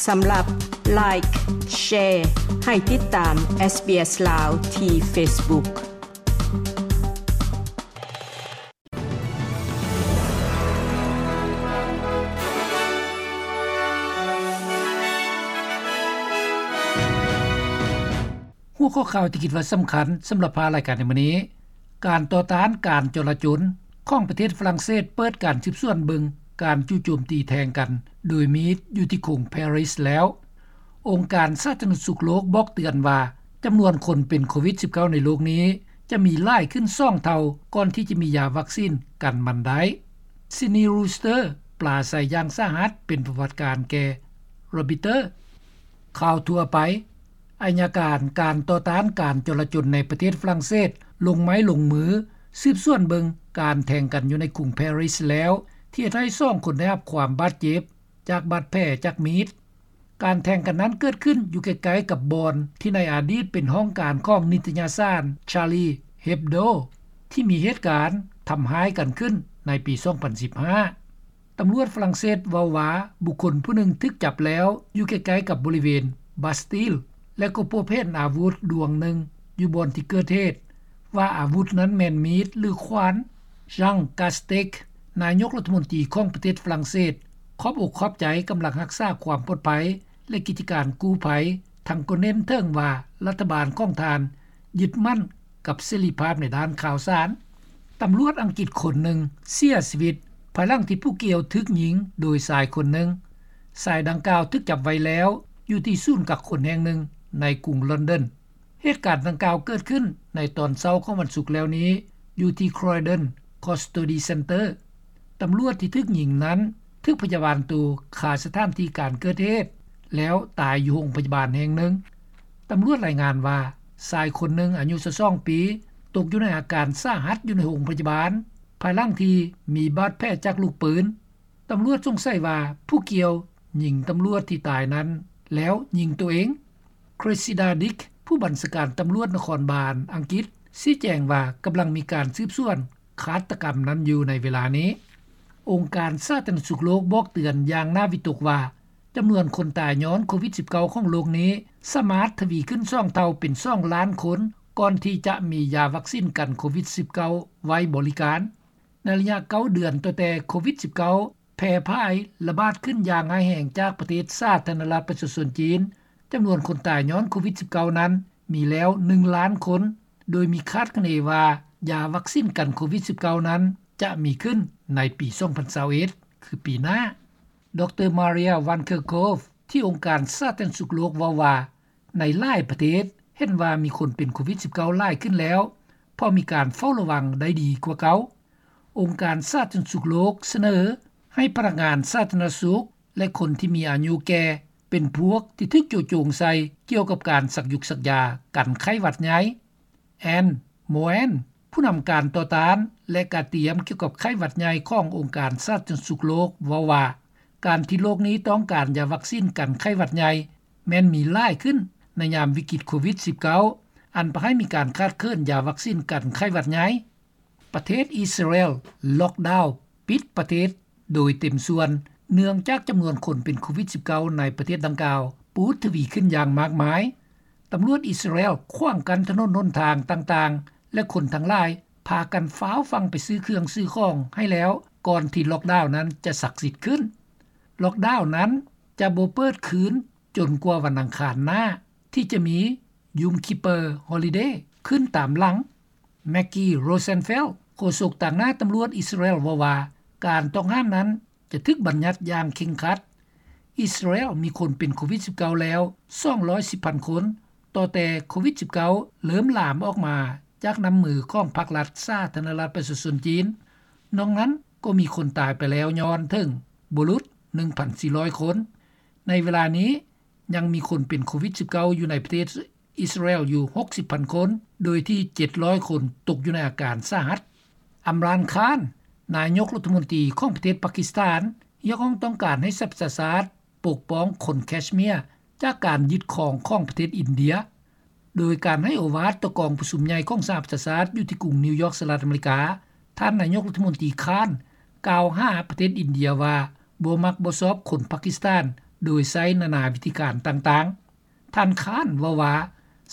ສຳລັບ Like, Share ໃຫ້ຕິດຕາມ SBS ລາວ ທີ່ Facebook. ຫົວຂໍ້ຂ່າວທີ່ຄິດວ່າສຳຄັນສຳລັບພາລາຍການໃນມື້ນີ້: ການຕໍ່ຕ້ານການຈໍລະຈົນຂອງປະເທດຝຣັ່ງເສດເປີດການສືບສວນເບິ່ງການຈູ່ໂຈມຕີແທງກັນໂດຍມີດຢູ່ທີ່ກຸງປາຣີແລ້ວ. ອົງການສາທາລະນະສຸກໂລກບອກເຕືອນວ່າ ຈຳນວນຄົນເປັນໂຄວິດສິບເກົ້າໃນໂລກນີ້ຈະມີຫຼາຍຂຶ້ນສອງເທົ່າ ກ່ອນທີ່ຈະມີຢາວັກຊິນກັນມັນໄດ້. Sidney Rooster ປາໄສຢ່າງສາຫັດເປັນປະຫວັດການແກ່ Reuters. ຂ່າວທົ່ວໄປ: ອັຍການການຕໍ່ຕ້ານການຈໍລະຈົນໃນປະເທດຝຣັ່ງເສດລົງໄມ້ລົງມືສືບສວນເບິ່ງການແທງກັນຢູ່ໃນກຸງປາຣີແລ້ວ ທີ່ເຮັດໃຫ້ສອງຄົນໄດ້ຮັບຄວາມບາດເຈັບຈາກບາດແຜຈາກມີດ. ການແທງກັນນັ້ນເກີດຂຶ້ນຢູ່ໃກ້ໆກັບບ່ອນທີ່ໃນອະດີດເປັນຫ້ອງການຂອງນິດຕະຍະສານ Charlie Hebdo ທີ່ມີເຫດການທຳຮ້າຍກັນຂຶ້ນໃນປີສອງພັນສິບຫ້າ. ຕຳຫຼວດຝຣັ່ງເສດເວົ້າວ່າ ບຸກຄົນຜູ້ໜຶ່ງຖືກຈັບແລ້ວຢູ່ໃກ້ໆກັບບໍລິເວນ Bastille ແລະກໍພົບເຫັນອາວຸດດວງໜຶ່ງຢູ່ບ່ອນທີ່ເກີດເຫດ ວ່າອາວຸດນັ້ນແມ່ນມີດ ຫຼື ຂວານ. Jean Castex ນາຍົກລັດຖະມົນຕີຂອງປະເທດຝຣັ່ງເສດ ຂອບອົກຂອບໃຈກຳລັງຮັກສາຄວາມປອດໄພ ແລະກິດຈະການກູ້ໄພ ທັງກໍເນັ້ນເຖິງວ່າລັດຖະບານຂອງທ່ານຍຶດໝັ້ນກັບເສລີພາບໃນດ້ານຂ່າວສານ. ຕຳຫຼວດອັງກິດຄົນໜຶ່ງເສຍຊີວິດ ພາຍຫຼັງທີ່ຜູ້ກ່ຽວຖືກຍິງໂດຍຊາຍຄົນໜຶ່ງ. ຊາຍດັ່ງກ່າວຖືກຈັບໄວ້ແລ້ວຢູ່ທີ່ສູນກັກຄົນແຫ່ງໜຶ່ງໃນກຸງລອນດອນ. ເຫດການດັ່ງກ່າວເກີດຂຶ້ນໃນຕອນເຊົ້າຂອງວັນສຸກແລ້ວນີ້ ຢູ່ທີ່ Croydon Custody Centre. ຕຳຫຼວດທີ່ຖືກຍິງນັ້ນຖືກພະຍາບານໂຕຄາສະຖານທີ່ການເກີດເຫດ ແລ້ວຕາຍຢູ່ໂຮງພະຍາບານແຫ່ງໜຶ່ງ. ຕຳຫຼວດລາຍງານວ່າ ຊາຍຄົນໜຶ່ງອາຍຸຊາວສອງປີ ຕົກຢູ່ໃນອາການສາຫັດຢູ່ໃນໂຮງພະຍາບານ ພາຍຫຼັງທີ່ມີບາດແຜຈາກລູກປືນ. ຕຳຫຼວດສົງໄສວ່າຜູ້ກ່ຽວຍິງຕຳຫຼວດທີ່ຕາຍນັ້ນ ແລ້ວຍິງໂຕເອງ. Cressida Dick ຜູ້ບັນຊາການຕຳຫຼວດນະຄອນບານອັງກິດ ຊີ້ແຈງວ່າກຳລັງມີການສືບສວນຄາດຕະກຳນັ້ນຢູ່ໃນເວລານີ້. ອົງການສາທາລະນະສຸກໂລກບອກເຕືອນຢ່າງໜ້າວິຕົກວ່າ ຈຳນວນຄົນຕາຍຍ້ອນໂຄວິດສິບເກົ້າຂອງໂລກນີ້ ສາມາດທະວີຂຶ້ນສອງເທົ່າເປັນສອງລ້ານຄົນ ກ່ອນທີ່ຈະມີຢາວັກຊິນກັນໂຄວິດສິບເກົ້າໄວ້ບໍລິການ. ໃນໄລຍະເກົ້າເດືອນ ຕັ້ງແຕ່ໂຄວິດສິບເກົ້າແຜ່ຜາຍລະບາດຂຶ້ນຢ່າງຮ້າຍແຮງຈາກປະເທດສາທາລະນະລັດປະຊາຊົນຈີນ, ຈຳນວນຄົນຕາຍຍ້ອນໂຄວິດສິບເກົ້ານັ້ນມີແລ້ວໜຶ່ງລ້ານຄົນ, ໂດຍມີຄາດຄະເນວ່າຢາວັກຊິນກັນໂຄວິດສິບເກົ້ານັ້ນຈະມີຂຶ້ນໃນປີສອງພັນຊາວເອັດ ຄືປີໜ້າ. ດຣ. Maria Van Kerkhove ທີ່ອົງການສາທາລະນະສຸກໂລກເວົ້າວ່າ ໃນຫຼາຍປະເທດເຫັນວ່າມີຄົນເປັນໂຄວິດສິບເກົ້າຫຼາຍຂຶ້ນແລ້ວ ເພາະມີການເຝົ້າລະວັງໄດ້ດີກວ່າເກົ່າ. ອົງການສາທາລະນະສຸກໂລກສະເໜີໃຫ້ພະນັກງານສາທາລະນະສຸກ ແລະ ຄົນທີ່ມີອາຍຸແກ່ເປັນພວກທີ່ຖືກໂຈະໂຈງໃສ່ກ່ຽວກັບການສັກຢຸກສັກຢາກັນໄຂ້ຫວັດໃຫຍ່. Anne Moen ຜູ້ນຳການຕໍ່ຕ້ານ ແລະ ການຕຽມກ່ຽວກັບໄຂ້ຫວັດໃຫຍ່ຂອງອົງການສາທາລະນະສຸກໂລກເວົ້າວ່າ ການທີ່ໂລກນີ້ຕ້ອງການຢາວັກຊິນກັນໄຂ້ຫວັດໃຫຍ່ ແມ່ນມີຫຼາຍຂຶ້ນໃນຍາມວິກິດໂຄວິດສິບເກົ້າ ອັນພາໃຫ້ມີການຂາດເຂີນຢາວັກຊິນກັນໄຂ້ຫວັດໃຫຍ່. ປະເທດອິດສະຣາເອລລັອກດາວປິດປະເທດໂດຍເຕັມສ່ວນ ເນື່ອງຈາກຈຳນວນຄົນເປັນໂຄວິດສິບເກົ້າໃນປະເທດດັ່ງກ່າວປູດທະວີຂຶ້ນຢ່າງມາກມາຍ. ຕຳຫຼວດອິດສະຣາເອລຂວາງກັ້ນຖະໜົນຫົນທາງຕ່າງໆ ແລະ ຄົນທັງຫຼາຍພາກັນຟ້າວຟັ່ງໄປຊື້ເຄື່ອງຊື້ຂອງໃຫ້ແລ້ວ ກ່ອນທີ່ລັອກດາວນັ້ນຈະສັກສິດຂຶ້ນ. ລັອກດາວນັ້ນຈະບໍ່ເປີດຄືນຈົນກວ່າວັນອັງຄານໜ້າ ທີ່ຈະມີ Yom Kippur Holiday ຂຶ້ນຕາມຫຼັງ. Maggie Rosenfeld ໂຄສົກຕາງໜ້າຕຳຫຼວດອິດສະຣາເອລເວົ້າວ່າ ການຕ້ອງຫ້າມນັ້ນຈະຖືກບັນຍັດຢ່າງເຄັ່ງຄັດ. ອິດສະຣາເອລມີຄົນເປັນໂຄວິດສິບເກົ້າແລ້ວສອງຮ້ອຍສິບພັນຄົນ ຕໍ່ແຕ່ໂຄວິດສິບເກົ້າເລີ່ມລາມອອກມາຈາກນ້ຳມືຂອງພັກລັດສາທາລະນະລັດປະຊາຊົນຈີນ. ນອກນັ້ນກໍມີຄົນຕາຍໄປແລ້ວຍ້ອນເຖິງບໍ່ຫຼຸດໜຶ່ງພັນສີ່ຮ້ອຍຄົນ. ໃນເວລານີ້ຍັງມີຄົນເປັນໂຄວິດສິບເກົ້າຢູ່ໃນປະເທດ ອິດສະຣາເອລຢູ່ຫົກສິບພັນຄົນ ໂດຍທີ່ເຈັດຮ້ອຍຄົນຕົກຢູ່ໃນອາການສາຫັດ. ອຳຣານ ຄານ ນາຍົກລັດຖະມົນຕີຂອງປະເທດປາກິສຖານ ຮຽກຮ້ອງຕ້ອງການໃຫ້ສະຫະປະຊາຊາດປົກປ້ອງຄົນແຄຊເມຍຈາກການຍຶດຄອງຂອງປະເທດອິນເດຍ. ໂດຍການໃຫ້ໂອວາດຕໍ່ກອງປະຊຸມໃຫຍ່ຂອງສະຫະປະຊາຊາດຢູ່ທີ່ກຸງນິວຢອກ ສະຫະລັດອາເມລິກາ, ທ່ານນາຍົກລັດຖະມົນຕີ ຄານ ກ່າວຫາປະເທດອິນເດຍວ່າ ບໍ່ມັກບໍ່ຊອບຄົນປາກິສຖານ ໂດຍໃຊ້ນານາວິທີການຕ່າງໆ. ທ່ານ Khan ເວົ້າວ່າ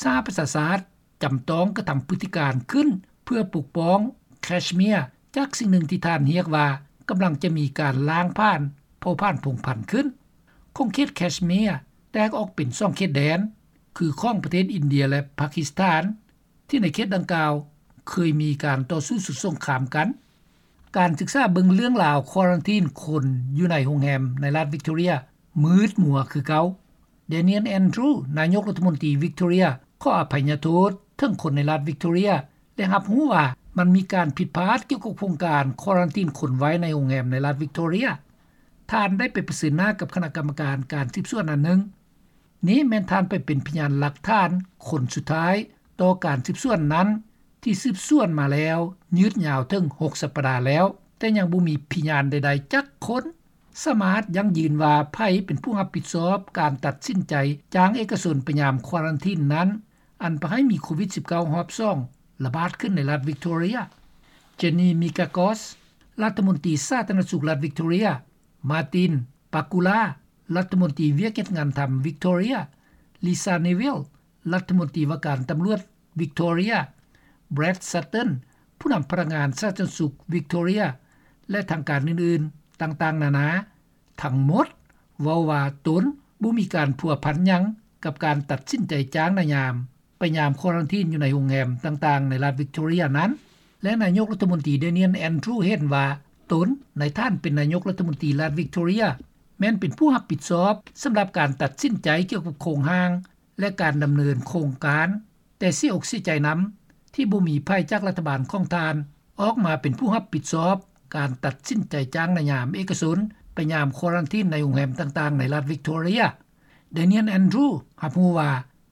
ສະຫະປະຊາຊາດຈຳຕ້ອງກະທຳພຶດຕິການຂຶ້ນ ເພື່ອປົກປ້ອງ Kashmir ຈາກສິ່ງໜຶ່ງທີ່ທ່ານຮຽກວ່າ ກຳລັງຈະມີການລ້າງຜານເຜົ່າພັນພົງພັນຂຶ້ນ. ຂົງເຂດ Kashmir ແຕກອອກເປັນສອງເຂດແດນ ຄືຂອງປະເທດອິນເດຍ ແລະ ປາກິສຖານ ທີ່ໃນເຂດດັ່ງກ່າວເຄີຍມີການຕໍ່ສູ້ສຸດສົງຄາມກັນ. ການສຶກສາເບິ່ງເລື່ອງລາວຄວາຣັນທີນຄົນຢູ່ໃນໂຮງແຮມໃນລັດ Victoria ມືດມົວຄືເກົ່າ. Daniel Andrews ນາຍົກລັດຖະມົນຕີ Victoria ຂໍອະໄພຍະໂທດເຖິງຄົນໃນລັດ Victoria ແລະ ຮັບຮູ້ວ່າມັນມີການຜິດພາດກ່ຽວກັບໂຄງການຄວາຣັນທີນຄົນໄວ້ໃນໂຮງແຮມໃນລັດ Victoria. ທ່ານໄດ້ໄປປະເຊີນໜ້າກັບຄະນະກຳມະການການສືບສວນອັນໜຶ່ງ. ນີ້ແມ່ນທ່ານໄປເປັນພະຍານຫຼັກຖານຄົນສຸດທ້າຍຕໍ່ການສືບສວນນັ້ນ ທີ່ສືບສວນມາແລ້ວຍືດຍາວເຖິງຫົກສັບປະດາແລ້ວ, ແຕ່ຍັງບໍ່ມີພະຍານໃດໆຈັກຄົນສາມາດຢັ້ງຢືນວ່າໃຜເປັນຜູ້ຮັບຜິດຊອບການຕັດສິນໃຈຈ້າງເອກະຊົນໄປຍາມຄວາຣັນທີນນັ້ນ ອັນພາໃຫ້ມີໂຄວິດສິບເກົ້າຮອບສອງລະບາດຂຶ້ນໃນລັດ Victoria. Jenny Mikakos ລັດຖະມົນຕີສາທາລະນະສຸກລັດ Victoria, Martin Pakula ລັດຖະມົນຕີວຽກເຮັດງານທຳ Victoria, Lisa Neville ລັດຖະມົນຕີວ່າການຕຳຫຼວດ Victoria, Brad Sutton ຜູ້ນຳພະນັກງານສາທາລະນະສຸກ Victoria ແລະ ທາງການອື່ນໆຕ່າງໆນານາ ທັງໝົດເວົ້າວ່າຕົນບໍ່ມີການພົວພັນຫຍັງກັບການຕັດສິນໃຈຈ້າງນາຍາມໄປຍາມຄວາຣັນທີນຢູ່ໃນໂຮງແຮມຕ່າງໆໃນລັດ Victoria ນັ້ນ ແລະ ນາຍົກລັດຖະມົນຕີ Daniel Andrews ເຫັນວ່າຕົນໃນຖານເປັນນາຍົກລັດຖະມົນຕີລັດ Victoria ແມ່ນເປັນຜູ້ຮັບຜິດຊອບສຳລັບການຕັດສິນໃຈກ່ຽວກັບໂຄງຮ່າງ ແລະ ການດຳເນີນໂຄງການ, ແຕ່ເສຍອົກເສຍໃຈນຳທີ່ບໍ່ມີໃຜຈາກລັດຖະບານຂອງທ່ານອອກມາເປັນຜູ້ຮັບຜິດຊອບການຕັດສິນໃຈຈ້າງນາຍາມເອກະຊົນໄປຍາມຄວາຣັນທີນໃນໂຮງແຮມຕ່າງໆໃນລັດ Victoria. Daniel Andrews ຮັບຮູ້ວ່າ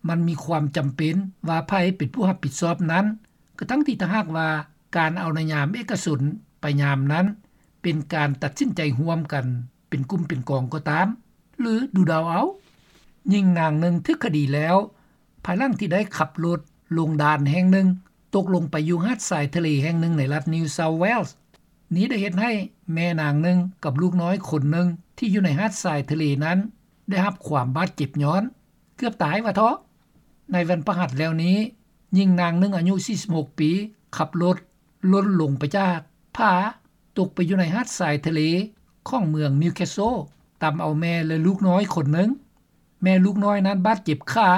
ມັນມີຄວາມຈຳເປັນວ່າໃຜເປັນຜູ້ຮັບຜິດຊອບນັ້ນ, ກະທັ່ງທີ່ຖ້າຫາກວ່າການເອົານາຍາມເອກະຊົນໄປຍາມນັ້ນເປັນການຕັດສິນໃຈຮ່ວມກັນ ເປັນກຸ່ມເປັນກອງກໍຕາມ ຫຼື ດູເດົາເອົາ. ຍິງນາງໜຶ່ງຖືກຄະດີແລ້ວ ພາຍຫຼັງທີ່ໄດ້ຂັບລົດລົງດ່ານແຫ່ງໜຶ່ງ ຕົກລົງໄປຢູ່ຫາດຊາຍທະເລແຫ່ງໜຶ່ງໃນລັດ New South Wales. ນີ້ໄດ້ເຮັດໃຫ້ແມ່ນາງໜຶ່ງກັບລູກນ້ອຍຄົນໜຶ່ງທີ່ຢູ່ໃນຫາດຊາຍທະເລນັ້ນ ໄດ້ຮັບຄວາມບາດເຈັບຍ້ອນ ເກືອບຕາຍວ່າເທາະ. ໃນວັນພະຫັດແລ້ວນີ້, ຍິງນາງໜຶ່ງອາຍຸສີ່ສິບຫົກປີ ຂັບລົດຫຼົ່ນລົງໄປຈາກຜາ ຕົກໄປຢູ່ໃນຫາດຊາຍທະເລຂອງເມືອງ Newcastle, ຕຳເອົາແມ່ ແລະ ລູກນ້ອຍຄົນໜຶ່ງ. ແມ່ລູກນ້ອຍນັ້ນບາດເຈັບຂາ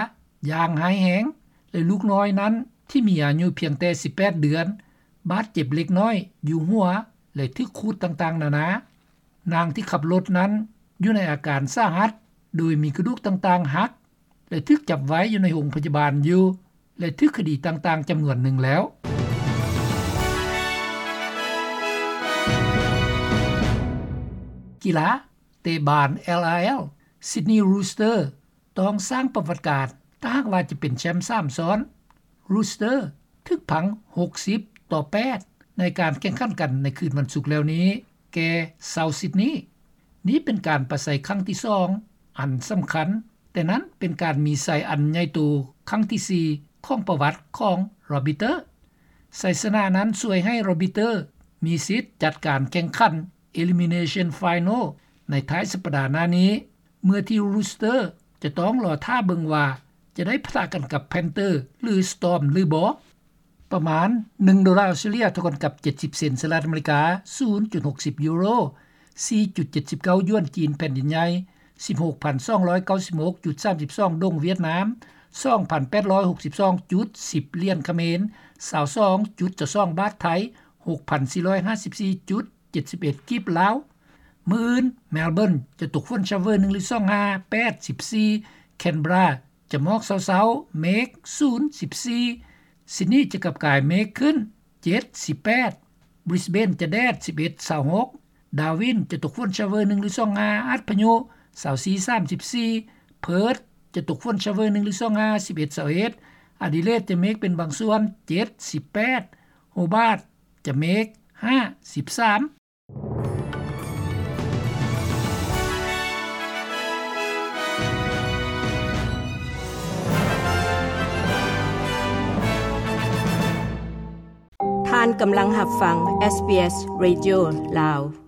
ຢ່າງຮ້າຍແຮງ ແລະ ລູກນ້ອຍນັ້ນທີ່ມີອາຍຸພຽງແຕ່ສິບແປດເດືອນ ບາດເຈັບເລັກນ້ອຍຢູ່ຫົວ ແລະ ຖືກຂູດຕ່າງໆນານາ. ນາງທີ່ຂັບລົດນັ້ນຢູ່ໃນອາການສາຫັດ ໂດຍມີກະດູກຕ່າງໆຫັກ ແລະ ຖືກຈັບໄວ້ຢູ່ໃນໂຮງພະຍາບານຢູ່ ແລະ ຖືກຄະດີຕ່າງໆຈຳນວນໜຶ່ງແລ້ວ. ກິລາ ເຕະບານ LRL, Sydney Roosters ຕ້ອງສ້າງປະຫວັດການ ຖ້າຫາກວ່າຈະເປັນແຊ້ມສາມຊ້ອນ. Roosters ຖືກພັງຫົກສິບຕໍ່ແປດ ໃນການແຂ່ງຂັນກັນໃນຄືນວັນສຸກແລ້ວນີ້ ແກ່ South Sydney. ນີ້ເປັນການປະໄສຄັ້ງທີສອງອັນສຳຄັນ, ແຕ່ນັ້ນເປັນການມີໄຊອັນໃຫຍ່ໂຕຄັ້ງທີສີ່ຂອງປະຫວັດຂອງ Robbiters. ໄຊຊະນະນັ້ນຊ່ວຍໃຫ້ Robbiters ມີສິດຈັດການແຂ່ງຂັນ Elimination Final ໃນທ້າຍສັບປະດາໜ້ານີ້, ເມື່ອທີ່ Roosters ຈະຕ້ອງລໍຖ້າເບິ່ງວ່າຈະໄດ້ປະທະກັນກັບ Panthers ຫຼື Storm ຫຼືບໍ່. ປະມານໜຶ່ງໂດລາອົດສະຕຣາເລຍ ເທົ່າກັນກັບເຈັດສິບເຊັນສະຫະລັດອາເມລິກາ, ສູນຈຸດຫົກສິບຢູໂຣ, ສີ່ຈຸດເຈັດສິບເກົ້າຢວນຈີນແຜ່ນດິນໃຫຍ່, ສິບຫົກພັນສອງຮ້ອຍເກົ້າສິບຫົກຈຸດສາມສິບສອງດົງຫວຽດນາມ, ສອງພັນແປດຮ້ອຍຫົກສິບສອງຈຸດສິບຫຼຽນຂະເໝນ, ຊາວສອງຈຸດຊາວສອງບາດໄທ, ຫົກພັນສີ່ຮ້ອຍຫ້າສິບສີ່ຈຸດ ເຈັດສິບເອັດກີບລາວ. ມື້ອື່ນ Melbourne ຈະຕົກຝົນຊາວເວີໜຶ່ງຫຼືສອງຫ້າ ແປດສິບສີ່, Canberra ຈະໝອກເຊົ້າໆ ເມກສູນສິບສີ່, Sydney ຈະກັບກາຍເມກຂຶ້ນ ເຈັດສິບແປດ, Brisbane ຈະແດດ ສິບເອັດຊາວຫົກ, Darwin ຈະຕົກຝົນຊາວເວີໜຶ່ງຫຼືສອງຫ້າ ອັດພະຍຸ ຊາວສີ່ສາມສິບສີ່, Perth ຈະຕົກຝົນຊາວເວີໜຶ່ງຫຼືສອງຫ້າ ສິບເອັດຊາວເອັດ, Adelaide ຈະເມກເປັນບາງສ່ວນ ເຈັດສິບແປດ, Hobart ຈະເມກ ຫ້າສິບສາມ. ທ່ານກຳລັງຮັບຟັງ SBS Radio ລາວ.